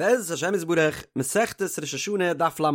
בעזרת השם יתברך, מסכת ראש השנה דף לב,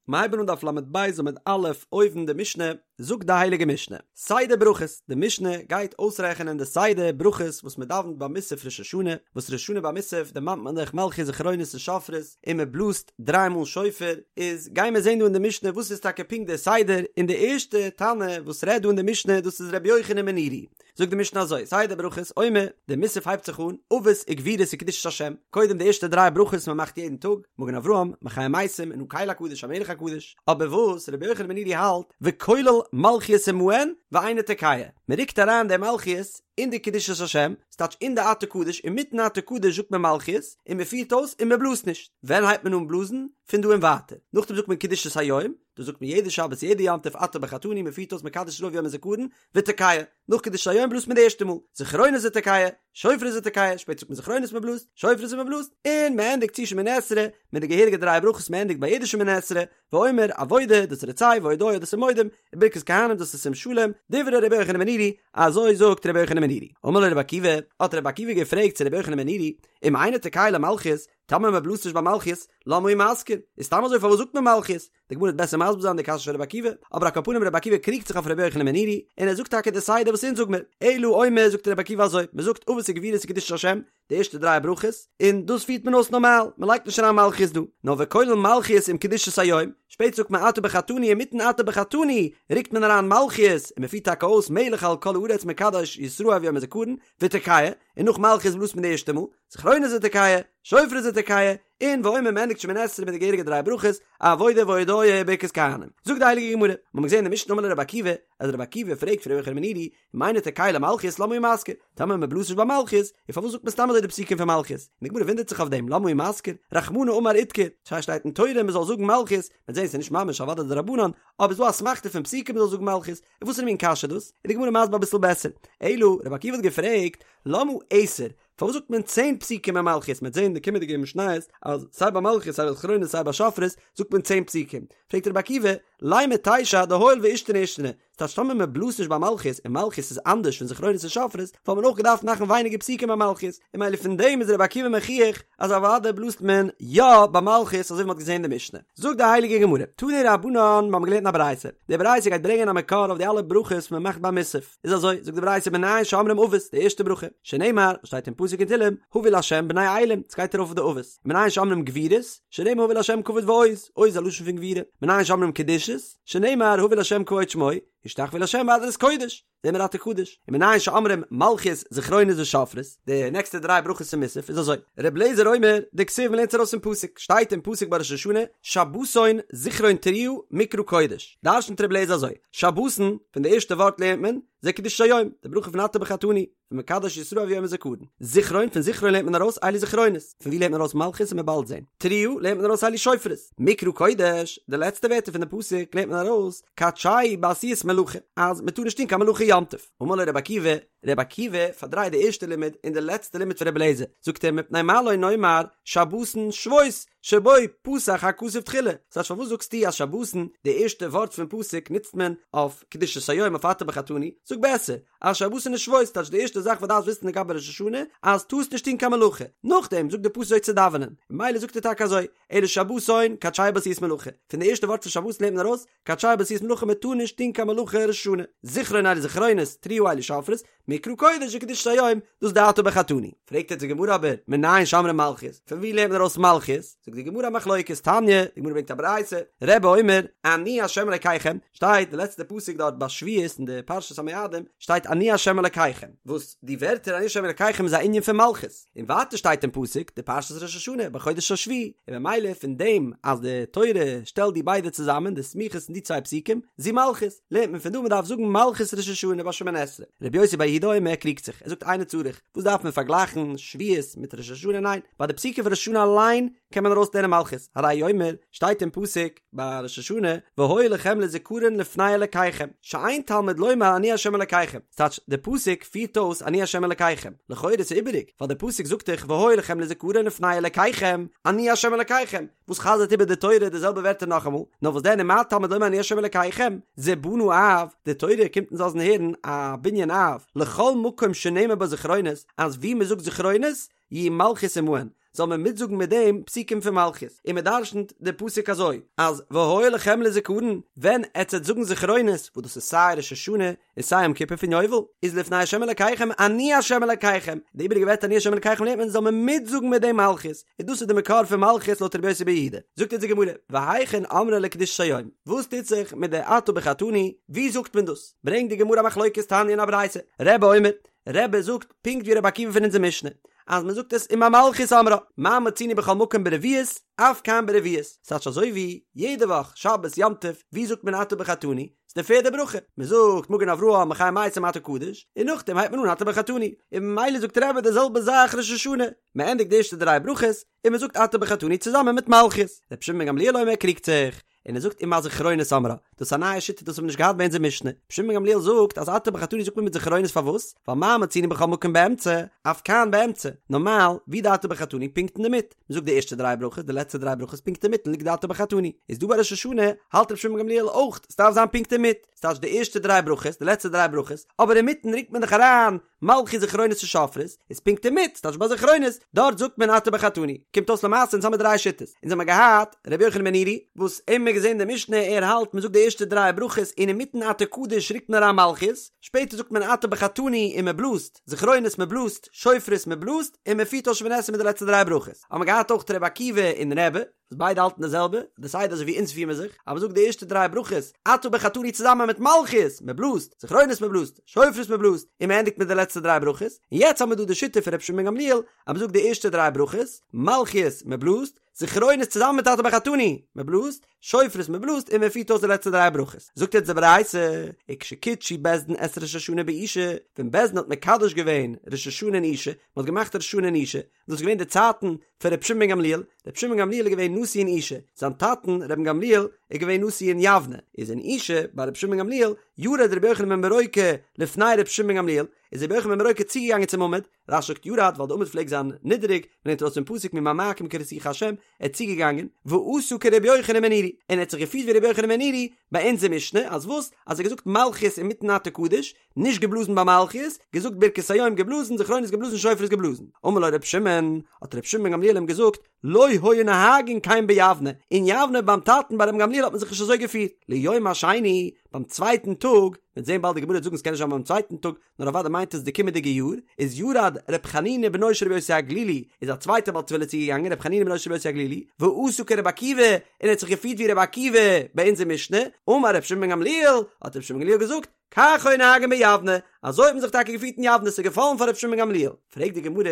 מיר הייבן אן דף לב עמוד א', אויבן די משנה, זאגט די הייליגע משנה, סדר ברכות, די משנה גייט אויסרעכענען די סדר ברכות וואס מען דאווענט ביי מוסף ראש השנה, וואס ראש השנה ביי מוסף דערמאנט מען דאך מלכיות זכרונות און שופרות, און מען בלאזט דריי מאל שופר, איז גייען מיר זען דא אין די משנה וואס איז טאקע פונקט דער סדר, און די ערשטע תנא וואס רעדט דא אין די משנה דאס איז רבי יוחנן בן נורי, זאגט די משנה אזוי, סדר ברכות, אומר, די מוסף הייבט זיך אן, אבות וגבורות וקדושת השם, קודם די ערשטע דריי ברכות מען מאכט יעדן טאג, מגן אברהם, מחיה מתים, און הקל הקדוש המלך הקדוש, אבער וואס רבי יוחנן בן נורי האלט, וכולל מלכיות עמהן ואינו תוקע, מען רוקט אריין די מלכיות אין די קדושת השם, ס'טייטש אין די אתה קדוש, אינמיטן אתה קדוש זאגט מען מלכיות, און מען פירט אויס און מען בלאזט נישט, ווען הייבט מען אן בלאזן? פון דא און ווייטער, נאכדעם זאגט מען קדושת היום, דאס זאגט מען יעדע שבת יעדע יום טוב אתה בחרתנו, מען פירט אויס מקדש ישראל וביום הזכרון, ותוקע, נאך קדושת היום בלאזט מען די ערשטע מאל, זכרונות ותוקע, שופרות ותוקע, שפעטער זאגט מען זכרונות מען בלאזט, שופרות און מען בלאזט, און מען ענדיגט צו שמונה עשרה, מיט די געהעריגע דריי ברכות מען ענדיגט ביי יעדע שמונה עשרה, ואומר, עבודה, דאס איז רצה, והודאה, דאס איז מודים, און ברכת כהנים, דאס איז שים שלום, דברי רבי יוחנן בן נורי, אזוי זאגט רבי יוחנן בן נורי. אמר לו רבי עקיבא, האט רבי עקיבא געפרעגט צו רבי יוחנן בן נורי, אם אינו תוקע למלכיות, טאמער מען בלאזט נישט ביי מלכיות, למה הוא מזכיר? איז סתם אזוי פארוואס זאגט מען מלכיות? די גמרא וועט בעסער מסביר זיין די קשיא פון רבי עקיבא, אבער על כל פנים רבי עקיבא קריגט זיך אויף רבי יוחנן בן נורי, און ער זאגט טאקע די סדר וואס אונז זאג מיר, אלא אומר זאגט רבי עקיבא אזוי, מען זאגט אבות וגבורות וקדושת השם, די ערשטע דריי ברכות, און דאס פירט מען אויס נארמאל, מען לייגט נישט אריין מלכיות דא, נאר וכולל מלכיות עם קדושת היום, שפעטער זאגט מען אתה בחרתנו אינמיטן אתה בחרתנו רוקט מען אריין מלכיות, און מען פירט טאקע אויס מלך על כל הארץ מקדש ישראל וביום הזכרון, ותוקע, און נאך מלכיות בלאזט מען די ערשטע מאל, זכרונות ותוקע, שופרות ותוקע, און ואומר מ'ענדיגט שמונה עשרה מיט די געהעריגע דריי ברכות, עבודה והודאה וברכת כהנים. זאגט די הייליגע גמרא, מיר האבן געזען אין די משנה אמר לו רבי עקיבא, אז רבי עקיבא פרעגט פון רבי יוחנן בן נורי, אם אינו תוקע למלכיות למה הוא מזכיר, טאמער מען בלאזט נישט ביי מלכיות, און פארוואס זאגט מען סתם אזוי די פסוקים פון מלכיות? און די גמרא וואונדערט זיך אויף דעם, למה הוא מזכיר, רחמנא אמר אידכר, ס'שטייט אין תורה מען זאל זאגן מלכיות, מ'וועט זען ס'איז נישט ממש אוודאי דרבנן, אבער ס'איז דא אסמכתא פון פסוקים מען זאל זאגן מלכיות, און וואס איז מין קשיא דאס? איז די גמרא מסביר אביסל בעסער, אלא רבי עקיבא האט געפרעגט, למה עשר, פארוואס זאגט מען צען פסוקים ביי מלכיות? מ'וועט זען אין די קומענדיגע משניות אז סיי ביי מלכיות סיי ביי זכרונות סיי ביי שופרות זאגט מען צען פסוקים. פרעגט רבי עקיבא, לימא תשע דהואיל ואישתני אישתני, ס'טייטש טאמער מען בלאזט נישט ביי מלכיות און מלכיות איז אנדערש פון זכרונות און שופרות וואלט מען אויך געדארפט מאכן ווייניגער פסוקים ביי מלכיות, און ממילא פון דעם איז רבי עקיבא מוכיח אז אוודאי בלאזט מען יא ביי מלכיות אזוי ווי מ'האט געזען אין די משנה. זאגט די הייליגע גמרא, תנו רבנן, מ'האבן געלערנט אין א ברייתא, די ברייתא גייט ברענגען א מקור אויף די אלע ברכות וואס מ'מאכט ביי מוסף. איז אזוי, זאגט די ברייתא מנין שאומרים אבות, די ערשטע ברכה, שנאמר, וואס שטייט אין פסוק אין תהלים, הבו לה' בני אלים, עס גייט ארויף אויף די אבות, מנין שאומרים גבורות, שנאמר הבו לה' כבוד ועוז, עוז איז א לשון פון גבורה, מנין שאומרים קדושות, שנאמר הבו לה' כבוד שמו, השתחוו לה' בהדרת קודש, זעהן מיר אתה קדוש, און מנין שאומרים מלכיות זכרונות ושופרות, די נעקסטע דריי ברכות אין מוסף איז אזוי, ר' אליעזר אומר, דכתיב מ'לערנט עס ארויס פון פסוק, שטייט אין פסוק ביי ראש השנה, שבתון זכרון תרועה מקרא קודש, דרש'נט ר' אליעזר אזוי, שבתון, פון די ערשטע ווארט לערנט מען, זה קדושת היום, די ברכה פון אתה בחרתנו, פון מקדש ישראל וביום הזכרון. זכרון, פון זכרון לערנט מען ארויס אלו זכרונות, פון ווי לערנט מען ארויס מלכיות וועט מען באלד זען. תרועה לערנט מען ארויס אלו שופרות. מקרא קודש, די לעצטע ווערטער פון די פסוק לערנט מען ארויס, קדשהו בעשיית מלאכה, אז מען טאר נישט טון קיין מלאכה יום טוב. אמר לו רבי עקיבא, רבי עקיבא פארדרייט די ערשטע לימוד און די לעצטע לימוד פון רבי אליעזר, זאגט ער מפני מה לא נאמר שבתון שבות, שבו פתח הכתוב תחילה, ס'טייטש פארוואס זאגסטו אז שבתון, די ערשטע ווארט פון פסוק נוצט מען אויף קדושת היום אויף אתה בחרתנו, זאג בעסער אז שבתון איז שבות, ס'טייטש די ערשטע זאך וואס דארפסט וויסן לגבי ראש השנה אז טארסט נישט טון קיין מלאכה, נאכדעם זאגט די פסוק אזוי צו דאווענען, ממילא זאגט ער טאקע אזוי, אלא שבתון קדשהו בעשיית מלאכה, פון די ערשטע ווארט פון שבתון לערנט מען ארויס קדשהו בעשיית מלאכה מען טאר נישט טון קיין מלאכה ראש השנה, זכרון אלו זכרונות, תרועה אלו שופרות, מקרא קודש זה קדושת היום, דאס די אתה בחרתנו. פרעגט יעצט די גמרא אבער, מנין שאומרים מלכיות? פון ווי לערנט מען ארויס מלכיות? זאגט די גמרא א מחלוקת, תניא, די גמרא ברענגט א ברייתא, רבי אומר, אני ה' אלקיכם, שטייט די לעצטע פסוק דארט ביי שבועות אין די פרשת המועדים, שטייט אני ה' אלקיכם, וואס די ווערטער אני ה' אלקיכם איז א ענין פון מלכות, און ווייטער שטייט אין פסוק די פרשת ראש השנה בחודש השביעי, און ממילא פון דעם אז די תורה שטעלט די ביידע צוזאמען די סמיכות אין די צוויי פסוקים, זו מלכות, לערנט מען פון דא מען דארף זאגן מלכות ראש השנה ביי שמונה עשרה. רבי יוסי בר יהודה אומר קריגט זיך, ער זאגט אינו צריך, וואס דארף מען פארגלייכן שבועות מיט ראש השנה, ניין, ביי די פסוקים פון ראש השנה אליין קען מען ארויסלערנען מלכות, הרי הוא אומר, שטייט אין פסוק ביי ראש השנה, והיה לכם לזכרון לפני אלקיכם, שאין תלמוד לומר אני ה' אלקיכם, ס'טייטש די פסוק פירט אויס אני ה' אלקיכם, לכאורה איז איבעריג, ווייל די פסוק זאגט דאך והיה לכם לזכרון לפני אלקיכם, אני ה' אלקיכם, וואס חזר'ט איבער די תורה די זעלבע ווערטער נאכאמאל, נאר וואס דען ומה תלמוד לומר אני ה' אלקיכם, זה בנה אב, די תורה קומט אונז לאזן הערן א בנין אב, לכל מקום שנאמר בו זכרונות, אז ווי מ'זאגט זכרונות, יהא מלכיות עמהן. זאל מען מיטזאגן מיט דעם פסוקים פון מלכיות, און מען דרשנ'ט די פסוק אזוי, אז והיה לכם לזכרון, ווען עטס וועט זאגן זכרונות, וואס דאס איז סיי ראש השנה און סיי יום כיפור פון יובל, איז לפני ה' אלקיכם אני ה' אלקיכם, די איבעריגע ווערטער אני ה' אלקיכם לערנט מען זאל מען מיטזאגן מיט דעם מלכיות, און דאס איז די מקור פון מלכיות לויט רבי יוסי ברבי יהודה. זאגט אונז די גמרא, והיכן אמרה לקדושת היום, וואס טוט זיך מיט די אתה בחרתנו, ווי זאגט מען דאס? ברענגט די גמרא א מחלוקת תניא אין א ברייתא, רבי אומר, רבי זאגט פונקט ווי רבי עקיבא פון אונזער משנה, אז מען זאגט עס עם המלכיות אומרה, מה מצינו בכל מקום ברביעית, אף כאן ברביעית, ס'טייטש אזוי ווי יעדע וואך, שבת, יום טוב, ווי זאגט מען אתה בחרתנו? ס'איז די פערדע ברכה, מען זאגט מגן אברהם מחיה מתים אתה קדוש, און נאכדעם הייבט מען אן אתה בחרתנו, און ממילא זאגט רבי די זעלבע זאך ראש השנה, מען ענדיגט די ערשטע דריי ברכות, און מען זאגט אתה בחרתנו צוזאמען מיט מלכיות. רבי שמעון בן גמליאל אומר קריגט זיך, און ער זאגט עם הזכרונות אומרה, דאס איז א נייע שיטה דאס האבן מיר נישט געהאט ביי אונזער משנה, רבי שמעון בן גמליאל זאגט אז אתה בחרתנו זאגט מען מיט זכרונות פארוואס? ווייל מה מצינו בכל מקום באמצע, אף כאן באמצע, נארמאל ווי די אתה בחרתנו פונקט אינדערמיט, מען זאגט די ערשטע דריי ברכות די לעצטע דריי ברכות פונקט אינמיטן ליגט די אתה בחרתנו, איז דא ביי ראש השנה האלט רבי שמעון בן גמליאל אויך ס'דארף זיין פונקט אינמיט, ס'טייטש די ערשטע דריי ברכות די לעצטע דריי ברכות, אבער אינמיטן רוקט מען דאך אריין מלכיות זכרונות און שופרות, איז פונקט אינמיט, ס'טייטש ביי זכרונות, דארט זאגט מען אתה בחרתנו. קומט אויס למעשה אונז האמיר דריי שיטות. אונז האמיר געהאט ר' יוחנן בן נורי, וואס אים האמיר געזען די משנה, ער האלט מ'זאגט די ערשטע דריי ברכות און אינמיטן אתה קדוש רוקט מען אריין מלכיות, שפעטער זאגט מען אתה בחרתנו און מ'בלאזט, זכרונות מ'בלאזט, שופרות מ'בלאזט, און מ'פירט אויס שמונה עשרה מיט די לעצטע דריי ברכות. האמיר געהאט אויך ר' עקיבא און רבי. וואס ביידע האלטן די זעלבע, די סדר אזוי ווי אונז פיר מיר זיך, אז מ'זאגט די ערשטע דריי ברכות, אתה בחרתנו צוזאמען מיט מלכיות, מ'בלאזט, זכרונות מ'בלאזט, שופרות מ'בלאזט, און מ'ענדיגט מיט די לעצטע דריי ברכות, און יעצט האמיר דא די שיטה פון רבי שמעון בן גמליאל, אז מ'זאגט די ערשטע דריי ברכות, מלכיות, מ'בלאזט, זכרונות צוזאמען מיט אתה בחרתנו, מ'בלאזט, שופרות מ'בלאזט, און מ'פירט אויס די לעצטע דריי ברכות. זאגט יעצט די ברייתא, וכשקידשו בית דין את ראש השנה באושא, ווען בית דין האט מקדש געווען ראש השנה אין אושא, מ'האט געמאכט ראש השנה אין אושא, דאס איז געווען די צייטן פון רבי שמעון בן גמליאל, רבי שמעון בן גמליאל איז געווען נשיא אין אושא, זיין טאטן רבן גמליאל איז געווען נשיא אין יבנה, איז אין אושא ביי רבי שמעון בן גמליאל, ירד רבי יוחנן בן ברוקה לפני רבי שמעון בן גמליאל, איז רבי יוחנן בן ברוקה צוגעגאנגען צום עמוד, רש"י זאגט ירד ווייל די עמוד פלעגט זיין נידעריג, מ'לערנט ארויס פון פסוק ממעמקים קראתיך ה', ער איז צוגעגאנגען, ועשה כרבי יוחנן בן נורי, און ער האט זיך געפירט ווי רבי יוחנן בן נורי ביי אונזער משנה, אז וואס? אז ער האט געזאגט מלכיות אינמיטן אתה קדוש, נישט געבלאזן ביי מלכיות, געזאגט ברכת היום געבלאזן, זכרונות געבלאזן, שופרות געבלאזן. אמר לו ר' שמעון, האט ר' שמעון בן גמליאל אים געזאגט, לא היו נוהגין כן ביבנה, אין יבנה ביים טאטן ביי ר' גמליאל האט מען זיך נישט אזוי געפירט. ליום השני, ביים צווייטן טאג, מ'וועט זען באלד די גמרא וועט זאגן ס'קען נישט זיין ביים צווייטן טאג, נאר אוודאי מיינט עס די קומענדיגע יאר, איז ירד ר' חנינא בנו של רבי יוסי הגלילי, איז א צווייטער בעל תפילה צוגעגאנגען ר' חנינא בנו של רבי יוסי הגלילי, ועשה כר' עקיבא, און ער האט זיך געפירט ווי ר' עקיבא ביי אונזער משנה, אמר ר' שמעון בן גמליאל, האט ר' שמעון בן גמליאל געזאגט, כך היו נוהגין ביבנה, אזוי האט מען זיך טאקע געפירט אין יבנה, ס'איז געפאלן פאר רבי שמעון בן גמליאל. פרעגט די גמרא,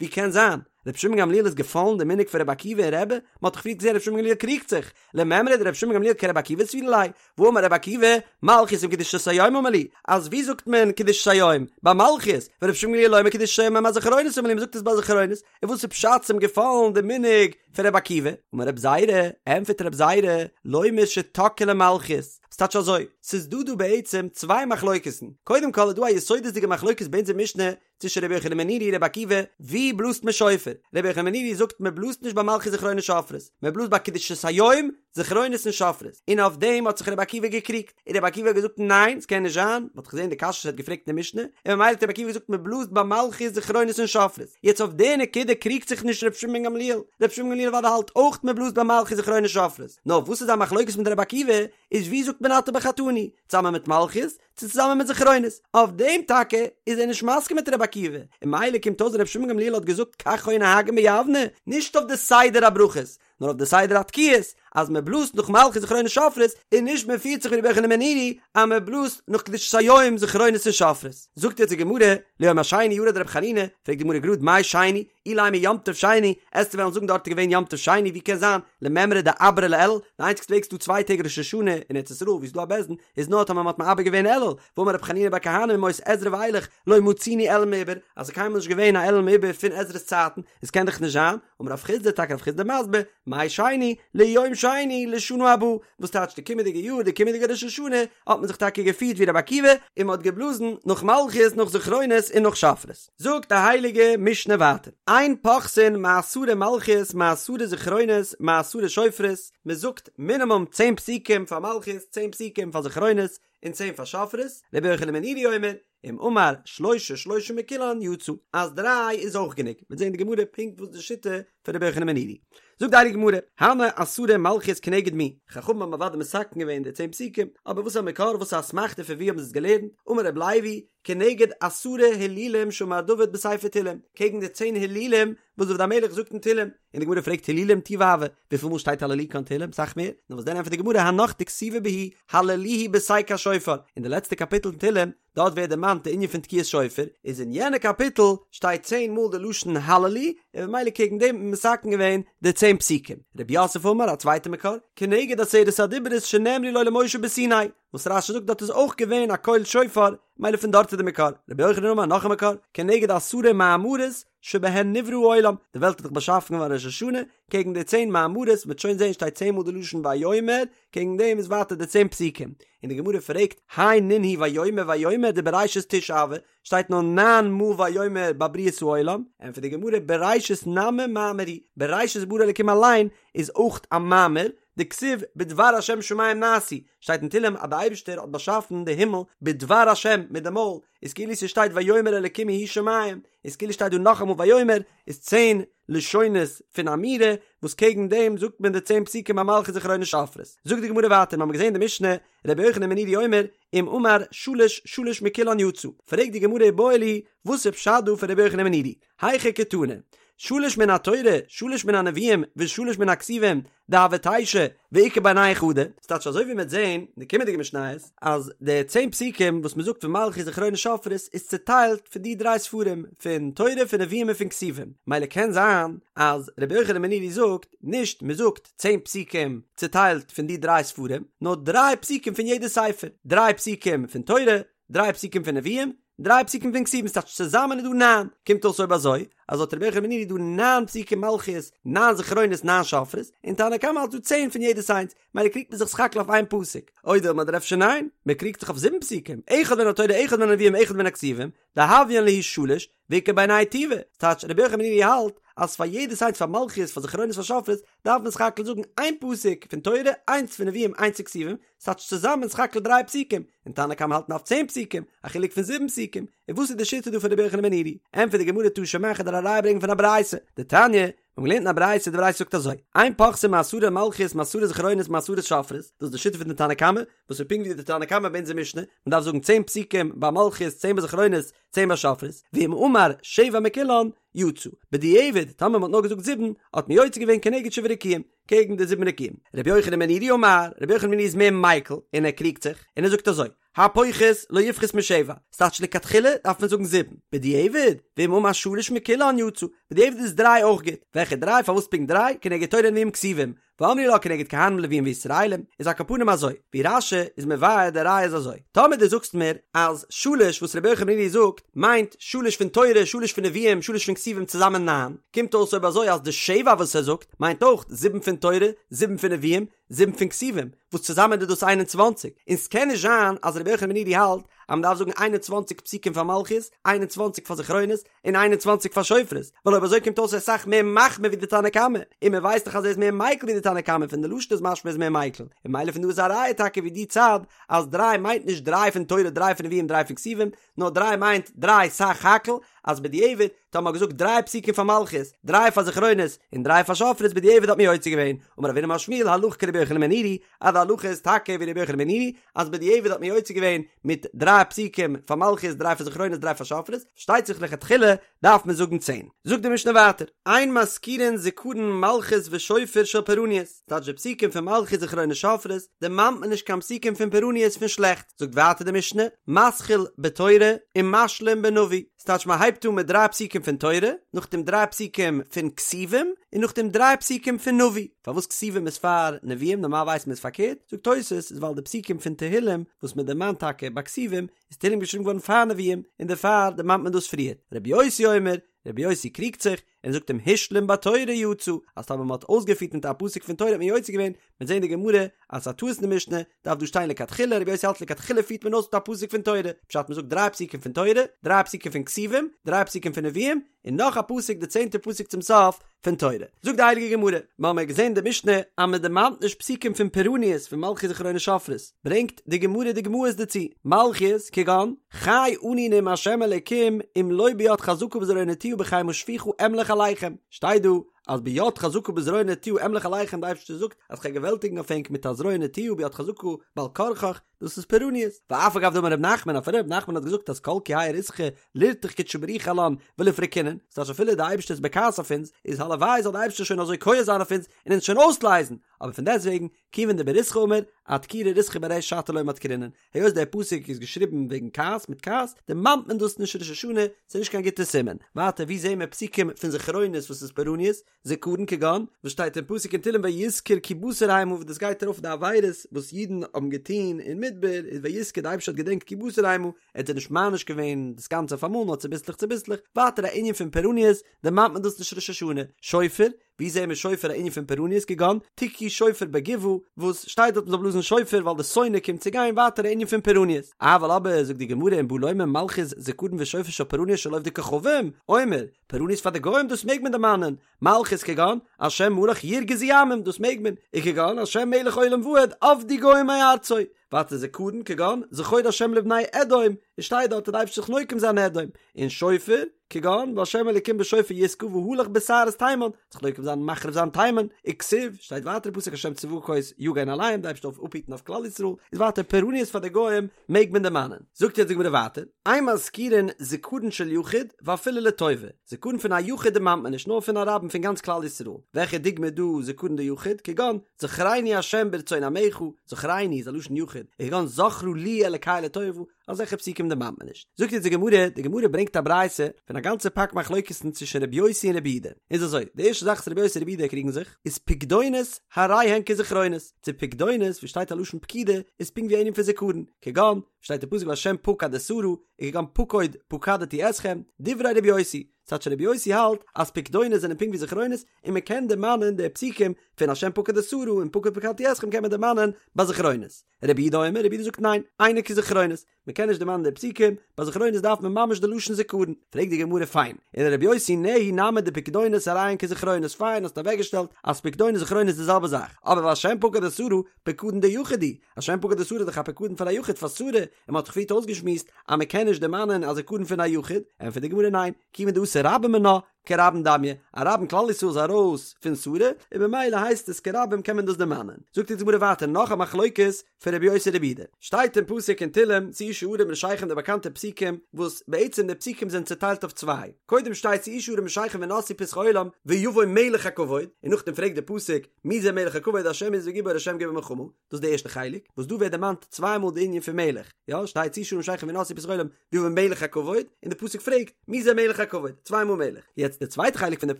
ווי קען זיין? רבי שמעון בן גמליאל איז געפאלן די מנהג פון רבי עקיבא און רבי? מ'האט דאך פריער געזען רבי שמעון בן גמליאל קריגט זיך, למימרא דרבי שמעון בן גמליאל כרבי עקיבא סבירא ליה, והאמר רבי עקיבא, מלכיות עם קדושת היום אמר להו, אז ווי זאגט מען קדושת היום? ביי מלכיות, ורבי שמעון בן גמליאל אומר קדושת היום עם הזכרונות אמר להו, מ'זאגט עס ביי זכרונות, און וואס איז פשט ס'איז אים געפאלן די מנהג פון רבי עקיבא? אמר רבי זירא, ענטפערט רבי זירא, לומר שתקעו למלכיות, ס'טייטש אזוי, ס'איז דא דא בעצם צוויי מחלוקת'ן, קודם כל איז דא א יסודות'דיגע מחלוקת ביי אונזער משנה צווישן רבי יוחנן בן נורי און רבי עקיבא, ווי בלאזט מען שופר? רבי יוחנן בן נורי זאגט מען בלאזט נישט ביי מלכיות זכרונות שופרות, מען בלאזט ביי קדושת היום, זכרונות און שופרות, און אויף דעם האט זיך רבי עקיבא געקריגט, און רבי עקיבא האט געזאגט ניין ס'קען נישט זיין, מ'האט דאך געזען די קשיא וואס ער האט געפרעגט אין די משנה, און ממילא האט רבי עקיבא געזאגט מ'בלאזט ביי מלכיות זכרונות און שופרות, יעצט אויף די נקודה קריגט זיך נישט רבי שמעון בן גמליאל, רבי שמעון בן גמליאל אוודאי האלט אויך מ'בלאזט ביי מלכיות זכרונות שופרות, נאר וואס איז זיין מחלוקת מיט רבי עקיבא, איז ווי זאגט מען אתה בחרתנו, צוזאמען מיט מלכיות, צו צוזאמען מיט זכרונות, אויף דעם טאקע איז ער נישט מסכים מיט רבי עקיבא, און ממילא קומט אויס רבי שמעון בן גמליאל האט געזאגט כך היו נוהגין ביבנה, נישט אויף די סדר הברכות, נאר אויף די סדר התקיעות, אז מען בלאזט נאך מלכיות זכרונות שופרות, און נישט מען פירט זיך ווי רבי יוחנן בן נורי אז מען בלאזט נאך קדושת היום זכרונות און שופרות. זאגט יעצט די גמרא, ליום השני ירד רבי חנינא, פרעגט די גמרא גראד מאי שני, אילימא יום טוב שני, עסטו וועלן זאגן דארט איז געווען יום טוב שני, ווי קען זיין, למימרא דעברוה לאלול, די איינציגסטע וועג ס'דא צוויי טעג ראש השנה אין ארץ ישראל ווי ס'דא א בית דין, איז נאר טאמער מ'האט מעבר געווען אלול, והאמר רבי חנינא בר כהנא מימות עזרא ואילך לא מצינו אלול מעובר, אז ס'איז קיינמאל נישט געווען א אלול מעובר פון עזרא'ס צייטן, עס קען דאך נישט זיין, אמר רב חסדא טאקע רב חסדא מסביר, מאי שני, ליום שני לשנה הבאה, וואס טייטש די קומענדיגע יאר די קומענדיגע ראש השנה האט מען זיך טאקע געפירט ווי רבי עקיבא און מען האט געבלאזן נאך מלכיות נאך זכרונות און נאך שופרות. זאגט די הייליגע משנה ווייטער, אין פוחתין מעשרה מלכיות מעשרה זכרונות מעשרה שופרות, מען זאגט מינימום צען פסוקים פאר מלכיות צען פסוקים פאר זכרונות און צען פאר שופרות, רבי יוחנן בן נורי אומר, אם אמר שלשה שלשה מכולן יצא, אז דריי איז אויך גענוג, מ'וועט זען אין די גמרא פונקט וואס די שיטה. פון רבי יוחנן בן נורי. זאגט די הייליגע גמרא, הני עשרה מלכיות כנגד מי, חכמים האבן אוודאי מתקן געווען די צען פסוקים, אבער וואס איז א מקור, וואס איז א אסמכתא פון ווי האבן זיי עס געלערנט, אמר רבי לוי, כנגד עשרה הילולים שאמר דוד בספר תהילים, קעגן די צען הילולים וואס דוד המלך זאגט אין תהילים, און די גמרא פרעגט הילולים טובא הוו, וויפיל מאל שטייט הללוקה אין תהילים? סאך מער, נאר וואס דען ענטפערט די גמרא הנך דכתיבי בהו הללוהו בתקע שופר, אין די לעצטע קאפיטל אין תהילים, דארט ווערט דערמאנט די ענין פון תקיעת שופר, איז אין יענע קאפיטל שטייט צען מאל די לשון הללו, און ממילא קעגן דעם האט מען מתקן געווען די צען פסוקים. רב יוסף אמר, א צווייטע מקור, כנגד עשרת הדיברות שנאמרו לו למשה בסיני, וואס רש"י זאגט דארט איז אויך געווען א קול שופר, ממילא פון דארט איז די מקור. רבי יוחנן אמר, נאך א מקור, כנגד עשרה מאמרות שבהן נברא העולם, די וועלט איז דאך באשאפן געווארן ראש השנה, קעגן די צען מאמרות, מ'וועט שוין זען שטייט צען מאל די לשון ויאמר, קעגן דעם איז ווייטער די צען פסוקים, און די גמרא פרעגט, הי נינהו ויאמר ויאמר דבראשית תשעה הוו, שטייט נאר ניין מאל ויאמר ביי בריאת העולם, ענטפערט די גמרא בראשית נמי מאמר הוא, בראשית ברא אלקים אליין איז אויך א מאמר, דכתיב בדבר השם שמים נעשו, שטייט אין תהלים אז די אייבערשטער האט באשאפן די הימל בדבר השם מיט די מויל, איז כאילו ס'שטייט ויאמר אלקים יהיו שמים, איז כאילו שטייט דא נאכאמאל ויאמר, איז צען לשונות פון אמירה, וואס קעגן דעם זאגט מען די צען פסוקים ביי מלכיות זכרונות שופרות. זאגט די גמרא ווייטער, מ'האמיר געזען די משנה, רבי יוחנן בן נורי אומר, אם אמר שלש שלש מכולן יצא. פרעגט די גמרא איבעיא להו, וואס איז פשט דא פון רבי יוחנן בן נורי? היכי קתני, שלש מן התורה, שלש מן הנביאים, ושלש מן הכתובים, דהוו תשע, ואיכא בינייהו חדא, ס'טייטש אזוי ווי מ'וועט זען אין די קומענדיגע משניות, אז די צען פסוקים וואס מ'זאגט פון מלכיות זכרונות שופרות איז צוטיילט פון די דריי ספרים, פון תורה פון נביאים און פון כתובים, מילא קען זיין אז רבי יוחנן בן נורי זאגט נישט מ'זאגט צען פסוקים צוטיילט פון די דריי ספרים, נאר דריי פסוקים פון יעדע ספר, דריי פסוקים פון תורה, דריי פסוקים פון נביאים, דריי פסוקים פון כתובים, ס'טייטש צוזאמען איז דא ניין, קומט אויס אויב אזוי, אז לויט רבי יוחנן בן נורי איז דא ניין פסוקים מלכיות, ניין זכרונות, ניין שופרות, און תנא קמא האלט דא צען פון יעדעס איינס, מילא קריגט מען זיך סך הכל אויף איין פסוק, או דילמא אדער אפשר ניין, מען קריגט זיך אויף זיבן פסוקים, אחד מן התורה אחד מן הנביאים אחד מן הכתובים, דהויין להו שלש, ואיכא בינייהו טובא, ס'טייטש רבי יוחנן בן נורי האלט אז פאר יעדעס איינס פאר מלכיות פאר זכרונות פאר שופרות דארף מען סך הכל זאגן איין פסוק פון תורה איינס פון נביאים איינס פון כתובים, ס'טייטש צוזאמען סך הכל דריי פסוקים, און תנא קמא האלט מ'דארף צען פסוקים, א חילוק פון זיבן פסוקים, און וואס איז די שיטה דא פון רבי יוחנן בן נורי? ענטפערט די גמרא תא שמע כ'וועל דיר א ראיה ברענגען פון א ברייתא, דתניא, מיר האבן געלערנט אין א ברייתא, די ברייתא זאגט אזוי, אין פוחתין מעשרה מלכיות מעשרה זכרונות מעשרה שופרות, דאס איז די שיטה פון די תנא קמא, וואס איז פונקט ווי די תנא קמא ביי אונזער משנה, מען דארף זאגן צען פסוקים ביי מלכיות, צען ביי זכרונות, צען ביי שופרות, ואם אמר שבע מכולן, יצא. בדיעבד, טאמער מען האט נאר געזאגט זיבן, האט מען יוצא געווען כנגד שבעה רקיעים, קעגן די זיבן רקיעים. רבי יוחנן בן נורי אמר, רבי יוחנן בן נורי איז מער מיקל, און ער קריגט זיך, און ער זאגט אזוי, הפוחת לא יפחות משבע, ס'טייטש לכתחילה דארף מען זאגן זיבן, בדיעבד, ואם אמר שלש מכולן יצא, בדיעבד איז דריי אויך גוט, וועלכע דריי, פארוואס פונקט דריי, כנגד תורה נביאים כתובים, ואמרי לה כנגד כהנים לוויים וישראלים, איז על כל פנים אזוי, ווי רש"י איז מבאר די ראיה איז אזוי, טאמער דו זאגסט מיר אז שלש וואס רבי יוחנן בן נורי זאגט מיינט שלש פון תורה, שלש פון נביאים, שלש פון כתובים צוזאמען ניין, קומט אויס אויב אזוי אז די שבע וואס ער זאגט מיינט אויך זיבן פון תורה, זיבן פון נביאים, זיבן פון כתובים, וואס צוזאמען איז דאס איין און צוואנציג, און ס'קען נישט זיין אז רבי יוחנן בן נורי האלט אז מ'דארף זאגן 21 פסוקים פאר מלכיות, 21 פאר זכרונות, און 21 פאר שופרות, ווייל אויב אזוי קומט אויס ער איז אסאך מער מחמיר ווי די תנא קמא, און מען ווייסט דאך אז ער איז מער מיקל ווי די תנא קמא, פון די לשון איז משמע ער איז מער מיקל, און ממילא פון דא איז א ראיה טאקע ווי די צד אז דריי מיינט נישט דריי פון תורה דריי פון נביאים דריי פון כתובים, נאר דריי מיינט דריי סך הכל, אז בדיעבד טאמער מ'האט געזאגט דריי פסוקים פאר מלכיות, דריי פאר זכרונות, און דריי פאר שופרות בדיעבד האט מען יוצא געווען, אמר רב הונא אמר שמואל הלכה כרבי יוחנן בן נורי, אז די הלכה איז טאקע ווי רבי יוחנן בן נורי, אז בדיעבד האט מען יוצא געווען מיט דריי פסוקים פאר מלכיות דריי פאר זכרונות דריי פאר שופרות, פארשטייט זיך לכתחילה דארף מען זאגן צען. זאגט די משנה ווייטער, אין מזכירין זכרון מלכות ושופר של פורעניות, טייטש די פסוקים פון מלכיות זכרונות שופרות דערמאנט מען נישט קיין פסוקים פון פורעניות פון שלעכטס, זאגט ווייטער די משנה, מתחיל בתורה ומשלים בנביא, ס'טייטש מען הייבט אן מיט דריי פסוקים פון תורה, נאכדעם דריי פסוקים פון כתובים, און נאכדעם דריי פסוקים פון נביא. פארוואס כתובים איז פאר נביאים, נארמאל ווייסט מען איז פארקערט, זאגט תוס' איז ווייל די פסוקים פון תהילים וואס מען דערמאנט טאקע ביי כתובים, איז תהילים געשריבן געווארן פאר נביאים, און דערפאר דערמאנט מען דאס פריער. רבי יוסי אומר, רבי יוסי קריגט זיך, און זאגט אם השלים בתורה יצא, אז טאמער מען האט אויסגעפירט מיט א פסוק פון תורה האט מען יוצא געווען, מ'וועט זען אין די גמרא אז ס'איז א טעות אין די משנה, דארף דא שטיין לכתחילה, רבי יוסי האלט לכתחילה פירט מען אויס מיט א פסוק פון תורה, פשט מ'זאגט דריי פסוקים פון תורה, דריי פסוקים פון כתובים, דריי פסוקים פון נביאים, און נאך א פסוק די צענטע פסוק צום סוף פון תורה. זאגט די הייליגע גמרא, מ'האמיר געזען די משנה אז מ'דערמאנט נישט פסוקים פון פורעניות פון מלכיות זכרונות שופרות, ברענגט די גמרא דוגמאות דערצו, מלכיות כגון, חי אני נאם ה' אלוקים אם לא ביד חזקה ובזרוע נטויה בחימה שפוכה אמלך עליכם, שטייט דא. אז ביד חזקה ובזרוע נטויה אמלוך עליכם די אייבערשטער זאגט אז כ'גיי געוועלטיגן אויף ענק מיט א זרוע נטויה ביד חזקה בעל כרחך, דאס איז פורעניות. ואף על גב דאמר ר' נחמן, אפילו ר' נחמן האט געזאגט אז כל כי האי ריתחא לירתח קודשא בריך הוא עלן וליפרקינן, ס'טייטש אפילו די אייבערשטער איז בכעס אויף אונז, איז הלוואי זאל די אייבערשטער שוין אזוי כועס זיין אויף אונז און אונז שוין אויסלייזן, אבער פון דעסטוועגן, כיוון דבריתחא אמור, אדכורי ריתחא בריש שתא לא מדכרינן, היות דער פסוק איז געשריבן וועגן כעס מיט כעס, דערמאנט מען דאס נישט ראש השנה, ס'איז נישט קיין גוטע סימן. ווייטער וואו זעהן מיר פסוקים פון זכרונות וואס איז פורעניות? זכרון כגון, וואס שטייט אין פסוק אין תהלים ויזכר כי בשר המה וואס דאס גייט ארויף די עבירות וואס אידן האבן געטון אין מדבר, איז ויזכר די אייבערשטער האט געדענקט כי בשר המה, ער האט זיי נישט מעניש געווען דאס גאנצע אויף אמאל נאר צוביסלעך צוביסלעך, ווייטער א ענין פון פורעניות, דערמאנט מען דאס נישט ראש השנה, שופר, ווי זעהן מיר שופר א ענין פון פורעניות כגון תקעו שופר בגבעה וואס שטייט דארט מ'זאל בלאזן שופר ווייל די שונא קומט צו גיין ווייטער א ענין פון פורעניות אבל אבער זאגט די גמרא אם בא לומר מלכות זכרון ושופר של פורעניות של עובדי כוכבים אומר פורעניות פאר די גוים דאס מעג מען דערמאנען מלכות כגון השם מלך ירגזו עמים דאס מעג מען וכגון השם מלך עולם ועד אבדו גוים מארצו ווייטער זכרון כגון זכור השם לבני אדום עס שטייט דארט אז די אייבערשטער זיך נוקם זיין אדום און שופר כגון והשם אלקים בשופר יתקע והלך בסערות תימן, זיך נוקם זיין מחריב זיין תימן, וכתיב, שטייט ווייטער אין פסוק השם צבקות יגן עליהם, די אייבערשטער זאל אפהיטן אויף כלל ישראל, איז ווייטער פורעניות פאר די גוים מעג מען דערמאנען. זאגט יעצט די גמרא ווייטער, אין מזכירין זכרון של יחיד ואפילו לטובה, זכרון פון א יחיד דערמאנט מען נישט נאר פון א רבים פון גאנץ כלל ישראל, וועלכע דוגמא איז דא זכרון דיחיד, כגון זכרני השם ברצון עמך, זכרני איז א לשון יחיד, וכגון זכרה לי אלקי לטובה, אזעלכע פסוקים דערמאנט מען נישט. זאגט יעצט די גמרא, די גמרא ברענגט א ברייתא פון א גאנצע פאק מחלוקת'ן צווישן רבי יוסי און רבי יהודה. איז אזוי, די ערשטע זאך וואס רבי יוסי און רבי יהודה קריגן זיך, איז פקדונות הרי הן כזכרונות, צו פקדונות ווי שטייט א לשון פקידה איז פונקט ווי א ענין פון זכרון, כגון, ווי שטייט אין פסוק והשם פקד את שרה, און כגון פקוד פקדתי אתכם, דברי רבי יוסי, ס'טייטש רבי יוסי האלט אז פקדונות זענען פונקט ווי זכרונות און מען קען דערמאנען די פסוקים פון השם פקד את שרה און פקוד פקדתי אתכם קען מען דערמאנען ביי זכרונות. רבי יהודה אומר, רבי יהודה זאגט ניין, אינו כזכרונות, מען קען נישט דערמאנען די פסוקים, ביי זכרונות דארף מען ממש די לשון זכרון, פרעגט די גמרא פיין, ולרבי יוסי נהי נמי דפקדונות הרי הן כזכרונות, פיין האסט אוועקגעשטעלט אז פקדונות זכרונות איז די זעלבע זאך, אבער והשם פקד את שרה, פקדון דיחיד הוא, השם פקד את שרה איז דאך א פקדון פאר א יחיד פאר שרה, און מען האט דאך פריערט אויסגעשמועסט אז מען קען נישט דערמאנען א זכרון פון א יחיד, ענטפערט די גמרא ניין, כיוון דאתו רבים מינה, כרבים דמיא, א רבים כלל ישראל איז ארויס פון שרה, און במילא הייסט עס כרבים קען מען דאס דערמאנען. זאגט אונז די גמרא ווייטער נאך א מחלוקת פון רבי יוסי רבי יהודה. שטייט אין פסוק אין תהלים שאו שערים ראשיכם די באקאנטע פסוקים וואס בעצם די פסוקים זענען צוטיילט אויף צוויי. קודם שטייט שאו שערים ראשיכם ונשאו פתחי עולם ויבוא מלך הכבוד, און נאכדעם פרעגט די פסוק מי זה מלך הכבוד השם עז וגיבור השם גיבור מלחמה, דאס איז די ערשטע חלק, וואס דא ווערט דערמאנט צוויי מאל די ענין פון מלך, יא, שטייט שאו שערים ראשיכם ונשאו פתחי עולם ויבוא מלך הכבוד, און די פסוק פרעגט, מי זה מלך הכבוד? צוויי מאל מלך. יעצט די צווייטע חלק פון די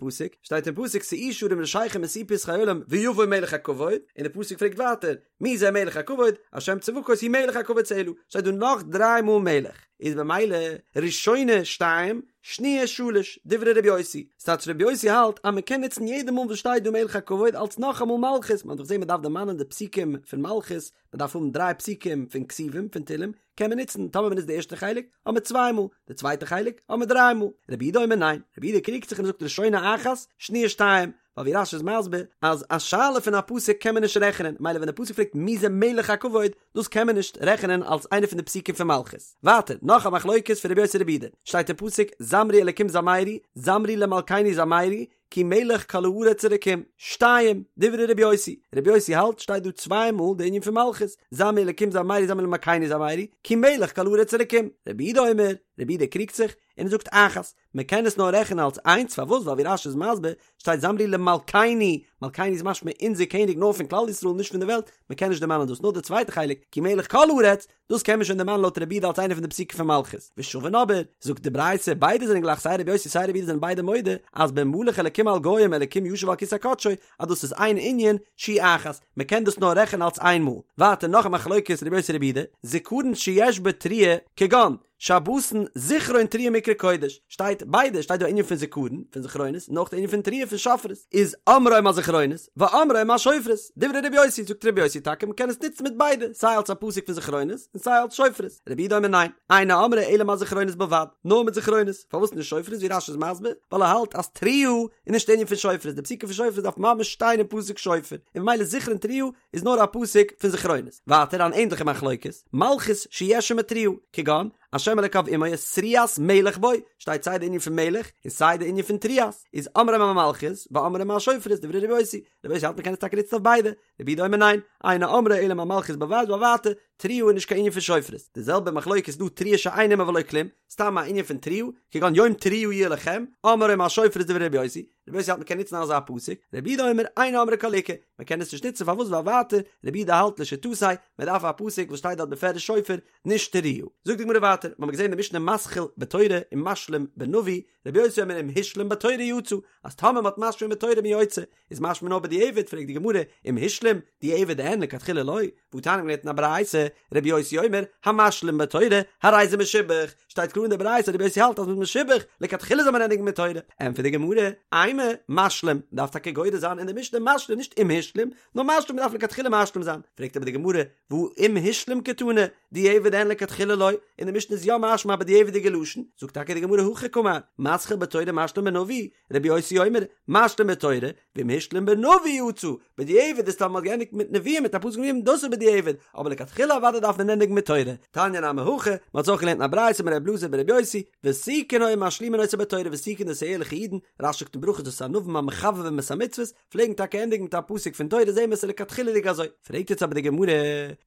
פסוק, שטייט אין פסוק שאו שערים ראשיכם ונשאו פתחי עולם ויבוא מלך הכבוד, און די פסוק פרעגט ווייטער, מי זה מלך הכבוד? השם צבקות הוא מלך הכבוד סלה, שטייט דא נאך דריי מאל מלך, איז במילא ראשונה שתיים, שניה שלש, דברי רבי יוסי, ס'טייטש רבי יוסי האלט אז מ'קען נוצן יעדע מאל וואס שטייט דא מלך הכבוד אלס נאכאמאל מלכות, מ'האט דאך געזען מ'דארף דערמאנען די פסוקים פון מלכות, מ'דארף האבן דריי פסוקים פון כתובים פון תהלים, קען מען נוצן, טאמער מ'נוצט די ערשטע חלק, האט מען צוויי מאל, די צווייטע חלק, האט מען דריי מאל. רבי יהודה אומר ניין, רבי יהודה קריגט זיך און זאגט ראשונה אחת, שניה שתיים, ווייל ווי רש"י איז מסביר אז א שאלה פון א פסוק קען מען נישט רעכענען, מילא ווען די פסוק פרעגט מי זה מלך הכבוד, דאס קען מען נישט רעכענען אלס איינע פון די פסוקים פון מלכות. ווייטער, נאך א מחלוקת פון רבי יוסי רבי יהודה, שטייט אין פסוק, זמרו אלקים זמרו, זמרו למלכנו זמרו, כי מלך כל הארץ אלקים. שתיים, דברי רבי יוסי, רבי יוסי האלט שטייט דא צוויי מאל די ענין פון מלכות, זמרו אלקים זמרו זמרו למלכנו זמרו, כי מלך כל הארץ אלקים. רבי יהודה אומר, רבי יהודה קריגט זיך, און ער זאגט אחת, מען קען עס נאר רעכענען אלס איינס, פארוואס? ווייל ווי רש"י איז מסביר, שטייט זמרו למלכנו, מלכנו איז משמע אונזער קעניג נאר פון כלל ישראל נישט פון די וועלט, מען קען נישט דערמאנען דאס, נאר די צווייטע חלק, כי מלך כל הארץ, דאס קען מען שוין דערמאנען לויט רבי יהודה אלס איינע פון די פסוקים פון מלכות. ושוין אבער, זאגט די ברייתא, ביידע זענען גלייך סיי רבי יוסי סיי רבי יהודה זענען ביידע מודה אז במלך אלקים על גוים אלקים יושב על כסא קדשו אז דאס איז איין ענין, שהיא אחת, מען קען דאס נאר רעכענען אלס איין מאל. ווייטער נאך א מחלוקת רבי יוסי רבי יהודה, זכרון שיש בו תרועה, כגון, שבתון זכרון תרועה מקרא קודש, שטייט ביידע, שטייט דא א ענין פון זכרון, פון זכרונות, און אויך די ענין פון תרועה פון שופרות, איז אומרו על זכרונות, ואומרו על שופרות, דברי רבי יוסי, זאגט רבי יוסי טאקע מ'קען עס נוצן מיט ביידע, סיי אלס א פסוק פון זכרונות, און סיי אלס שופרות, רבי יהודה אומר ניין, אינו אומרו אלא על זכרונות בלבד, נאר מיט זכרונות, פארוואס נישט שופרות ווי רש"י איז מסביר, ווייל ער האלט אז תרועה איז נישט די ענין פון שופרות, די פסוקים פון שופרות דארף ממש שטיין אין פסוק שופר, און ממילא זכרון תרועה איז נאר א פסוק פון זכרונות. ווייטער אן ענדליכע מחלוקת, מלכות שיש עמה תרועה, כגון, השם אלוקיו עמו ותרועת מלך בו, שטייט סיי די ענין פון מלך און סיי די ענין פון תרועת, איז אומרם אמלכיות ואומרם אשופרות דברי רבי יוסי, רבי יוסי האלט מ'קען עס טאקע נוצן אויף ביידע, רבי יהודה אומר ניין, אינו אומרה אלא אמלכיות בלבד ווייל ווייטער, תרועה איז נישט קיין ענין פון שופרות, די זעלבע מחלוקת איז דא תרועה שאין עמה ולא כלום, סתם א ענין פון תרועה, כגון יום תרועה יהיה לכם, אומרה אשופרות דברי רבי יוסי, רבי יוסי האלט מ'קען נוצן אזא פסוק, רבי יהודה אומר אינו אומרה כל עיקר, מ'קען עס נישט נוצן פארוואס ווייל ווייטער, רבי יהודה האלט לשיטתו, מ'דארף א פסוק וואס שטייט דארט בפירוש שופר, נישט תרועה. זאגט די גמרא ווייטער, מ'האמיר געזען אין די משנה מתחיל בתורה און משלים בנביא, רבי יוסי אומר אם השלים בתורה יצא, אז טאמער מ'האט משלים בתורה איז מען יוצא, איז משמע נאר בדיעבד, פרעגט די גמרא, אם השלים, דיעבד אין, לכתחילה לא, והתניא מ'האט געלערנט אין א ברייתא, רבי יוסי אומר, המשלים בתורה, הרי זה משובח, שטייט קלאר אין די ברייתא רבי יוסי האלט אז מ'איז משובח, לכתחילה זאל מען ענדיגן מיט תורה, ענטפערט די גמרא, אימא, משלים, מ'דארף טאקע גורס זיין אין די משנה משלים נישט אם השלים, נאר משלים מ'דארף לכתחילה משלים זיין, פרעגט אבער די גמרא, והא אם השלים קתני, דיעבד אין לכתחילה לא, אין די משנה איז יא משמע א בדיעבד'יגע לשון, זאגט טאקע די גמרא הכי קאמר, מתחיל בתורה משלים בנביא, רבי יוסי אומר, משלים בתורה, ואם השלים בנביא יצא, בדיעבד איז טאמער מ'האט געענדיגט מיט נביאים מיט א פסוק נביאים דאס איז בדיעבד, אבער לכתחילה אוודאי דארף מען ענדיגן מיט תורה, תניא נמי הכי, מ'האט עס אויך געלערנט אין א ברייתא אמר רבי אלעזר ברבי יוסי, ותיקין היו משלימין אותה בתורה, ותיקין דאס איז ערליכע אידן, רש"י זאגט אין ברכות דאס איז ענווים המחבבים את המצוות, פלעגן טאקע ענדיגן מיט א פסוק פון תורה זעהן מיר עס איז לכתחילה'דיג אזוי, פרעגט יעצט אבער די גמרא,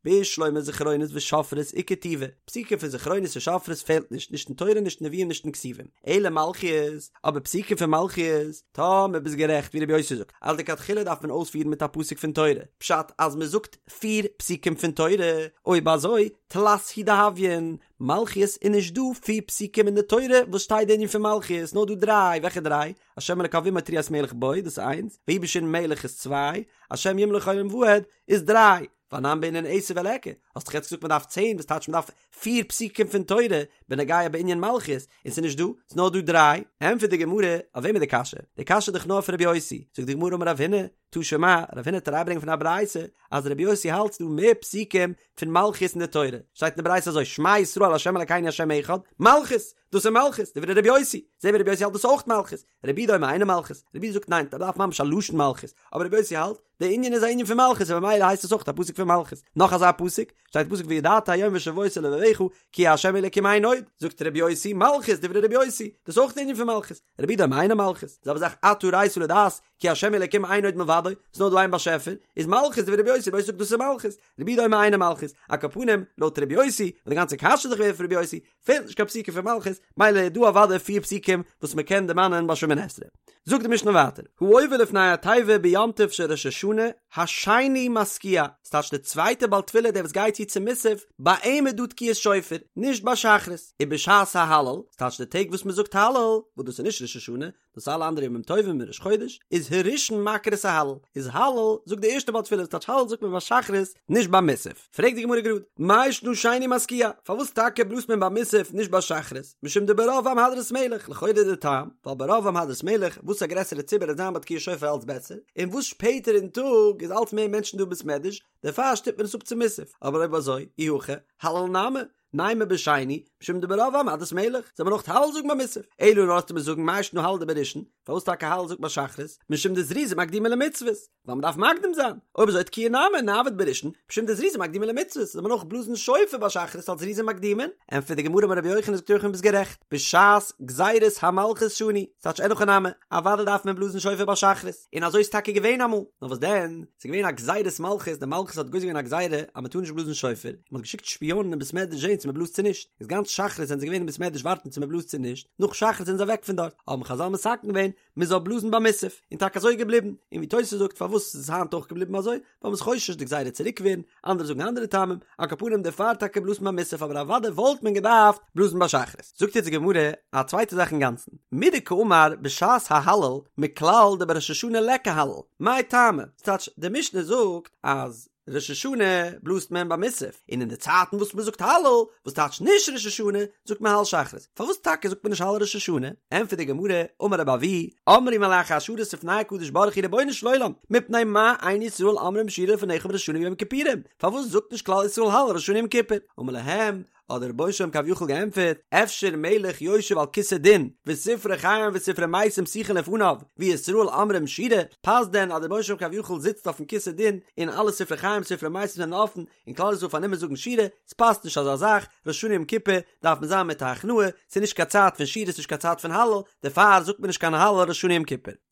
בשלמא זכרונות ושופרות איכא טובא, פסוקים פון זכרונות און שופרות פעלט נישט, נישט אין תורה נישט אין נביאים נישט אין כתובים, אלא מלכיות, אבער פסוקים פון מלכיות, טאמער ביסט גערעכט ווי רבי יוסי זאגט אז לכתחילה דארף מען אויספירן מיט א פסוק פון תורה, פשט אז מען זאגט פיר פסוקים פון תורה, אויב אזוי תלת הוא דהויין, מלכיות איז נישט דא פיר פסוקים אין די תורה וואס שטייט די ענין פון מלכיות, נאר דא דריי, וועלכע דריי? השם אלקיו עמו תרועת מלך בו, דאס איז איינס, ויהי בישורון מלך איז צוויי, השם ימלוך לעולם ועד איז דריי, ואנן בעינן עשר וליכא, האסט דאך יעצט געזאגט מען דארף צען, וואס טייטש מען דארף פיר פסוקים פון תורה בנוגע בענין מלכיות, און ס'איז נישט דא, ס'איז נאר דא דריי, ענטפערט די גמרא, אויף וועם איז די קשיא? די קשיא איז דאך נאר אויף רבי יוסי, זאגט די גמרא אמר רב הונא, תא שמע, רב הונא וועט אריינברענגען פון א ברייתא, אז רבי יוסי האלט ס'דא מער פסוקים פון מלכיות אין די תורה, שטייט אין די ברייתא אזוי, שמע ישראל ה' אלקינו ה' אחד, מלכות! דאס איז מלכות, דברי רבי יוסי, זעהן מיר רבי יוסי האלט דאס אויך מלכות, רבי יהודה אומר אינה מלכות, רבי יהודה זאגט ניין, מ'דארף ממש א לשון מלכות, אבער רבי יוסי האלט, די ענין איז א ענין פון מלכות און ממילא הייסט עס אויך א פסוק פון מלכות, נאך אזא פסוק, שטייט פסוק וידעת היום והשבות אל לבבך כי ה' אלקים אין עוד, זאגט רבי יוסי מלכות דברי רבי יוסי, דאס איז אויך די ענין פון מלכות, רבי יהודה אומר אינה מלכות, זעלבע זאך אתה הראת לדעת כי ה' אלקים אין עוד מלבדו, ס'איז נאר דא איין באשעפער, איז מלכות דברי רבי יוסי, רבי יוסי זאגט דאס איז מלכות, רבי יהודה אומר אינה מלכות, על כל פנים, לויט רבי יוסי, און די גאנצע קשיא איז דאך געווען אויף רבי יוסי, פעלט נישט קיין פסוקים פון מלכות, מילא איז דא אוודאי פיר פסוקים וואס מען קען דערמאנען ביי שמונה עשרה. זאגט די משנה ווייטער, העובר לפני התיבה ביום טוב של ראש השנה, השני מתקיע, ס'טייטש די צווייטע בעל תפילה דער וואס גייט צו צו מוסף, ביי אים איז דא תקיעת שופר, נישט ביי שחרית, ובשעת ההלל, ס'טייטש די טעג וואס מען זאגט הלל, וואס דאס איז נישט ראש השנה, דאס אלע אנדערע ימים טובים און ראש חודש איז הראשון מקרא את ההלל איז הלל זאגט די ערשטע בעל תפילה טייטש הלל זאגט מען ביי שחרית נישט ביי מוסף פרעגט די גמרא גראד מאי שנא שני מתקיע פארוואס טאקע בלאזט מען ביי מוסף נישט ביי שחרית משום דברוב עם הדרת מלך לכאורה די טעם ווייל ברוב עם הדרת מלך וואס א גרעסערע ציבור וועט זיין ביי תקיעת שופר אלץ בעסער און וואס שפעטער אין טאג איז אלץ מער מענטשן דא בית מדרש דערפאר שטופט מען עס אפ צו מוסף אבער אויב אזוי אי הכי הלל נמי נימא בשני, משום דברוב עם הדרת מלך, זאל מען אויך הלל זאגן ביי מוסף. אלא נאר וועסטו מיר זאגן מאי שנא הלל דבראשון, פארוואס טאקע הלל זאגט ביי שחרית, משום דזריזין מקדימין למצוות, ווייל מען דארף מקדים זיין, אויב אזוי תקיעה נמי נעביד בראשון, משום דזריזין מקדימין למצוות, זאל מען אויך בלאזן שופר ביי שחרית אלס זריזין מקדימין? ענטפערט די גמרא אמר רבי יוחנן זאגט רבי יוחנן ביסט גערעכט, בשעת גזירת המלכות שנו, ס'טייטש אין הכי נמי, אוודאי דארף מען בלאזן שופר ביי שחרית, און אזוי איז טאקע געווען אמאל, נאר וואס דען, ס'איז געווען א גזירת מלכות, די מלכות האט גוזר געווען א גזירה אז מ'טאר נישט בלאזן שופר, און מ'האט געשיקט שפיאנען אין בית מדרש זען צו מ'בלאזט צו נישט, איז גאנץ שחרית זענען זיי געווען אין בית מדרש ווארטן צו מ'בלאזט צו נישט, נאך שחרית זענען זיי אוועק פון דארט, האבן חזל מתקן געווען מ'זאל בלאזן ביי מוסף, און טאקע אזוי איז געבליבן, און ווי תוס' זאגט פארוואס איז עס היינט אויך געבליבן אזוי, ווייל מ'איז חושש די גזירה צוריק ווערן, אנדערע זאגן אנדערע טעמים, על כל פנים דערפאר טאקע בלאזט מען ביי מוסף אבער אוודאי וואלט מען געדארפט בלאזן ביי שחרית. זאגט יעצט די גמרא א צווייטע זאך אינגאנצן, מדקאמר בשעת ההלל מכלל דבראש השנה ליכא הלל, מאי טעמא? ס'טייטש די משנה זאגט אז ראש השנה בלאזט מען ביי מוסף, און אין די צייטן וואס מ'זאגט הלל, וואס טייטש נישט ראש השנה, זאגט מען הלל שחרית. פארוואס טאקע זאגט מען נישט הלל ראש השנה? ענטפערט די גמרא, אמר רבי אבהו, אמרו מלאכי השרת לפני הקדוש ברוך הוא רבונו של עולם, מפני מה אין ישראל אומרים שירה לפניך בראש השנה וביום הכיפורים? פארוואס זאגט נישט כלל ישראל הלל ראש השנה יום כיפור? אמר להם, האט דער רבונו של עולם כביכול געענטפערט, אפשר מלך יושב על כסא דין, וספרי חיים וספרי מתים פתוחין לפניו, וישראל אומרים שירה, פאסט דען אז דער רבונו של עולם כביכול זיצט אויפן כסא דין, און אלע ספרי חיים ספרי מתים זענען אפן, און כלל ישראל פארנומען זאגן שירה, ס'פאסט נישט אזא זאך, ראש השנה יום כיפור דארף מען זיין מיט א הכנעה, ס'איז נישט קיין צייט פון שירה ס'נישט קיין צייט פון הלל, דערפאר זאגט מען נישט קיין הלל ראש השנה יום כיפור.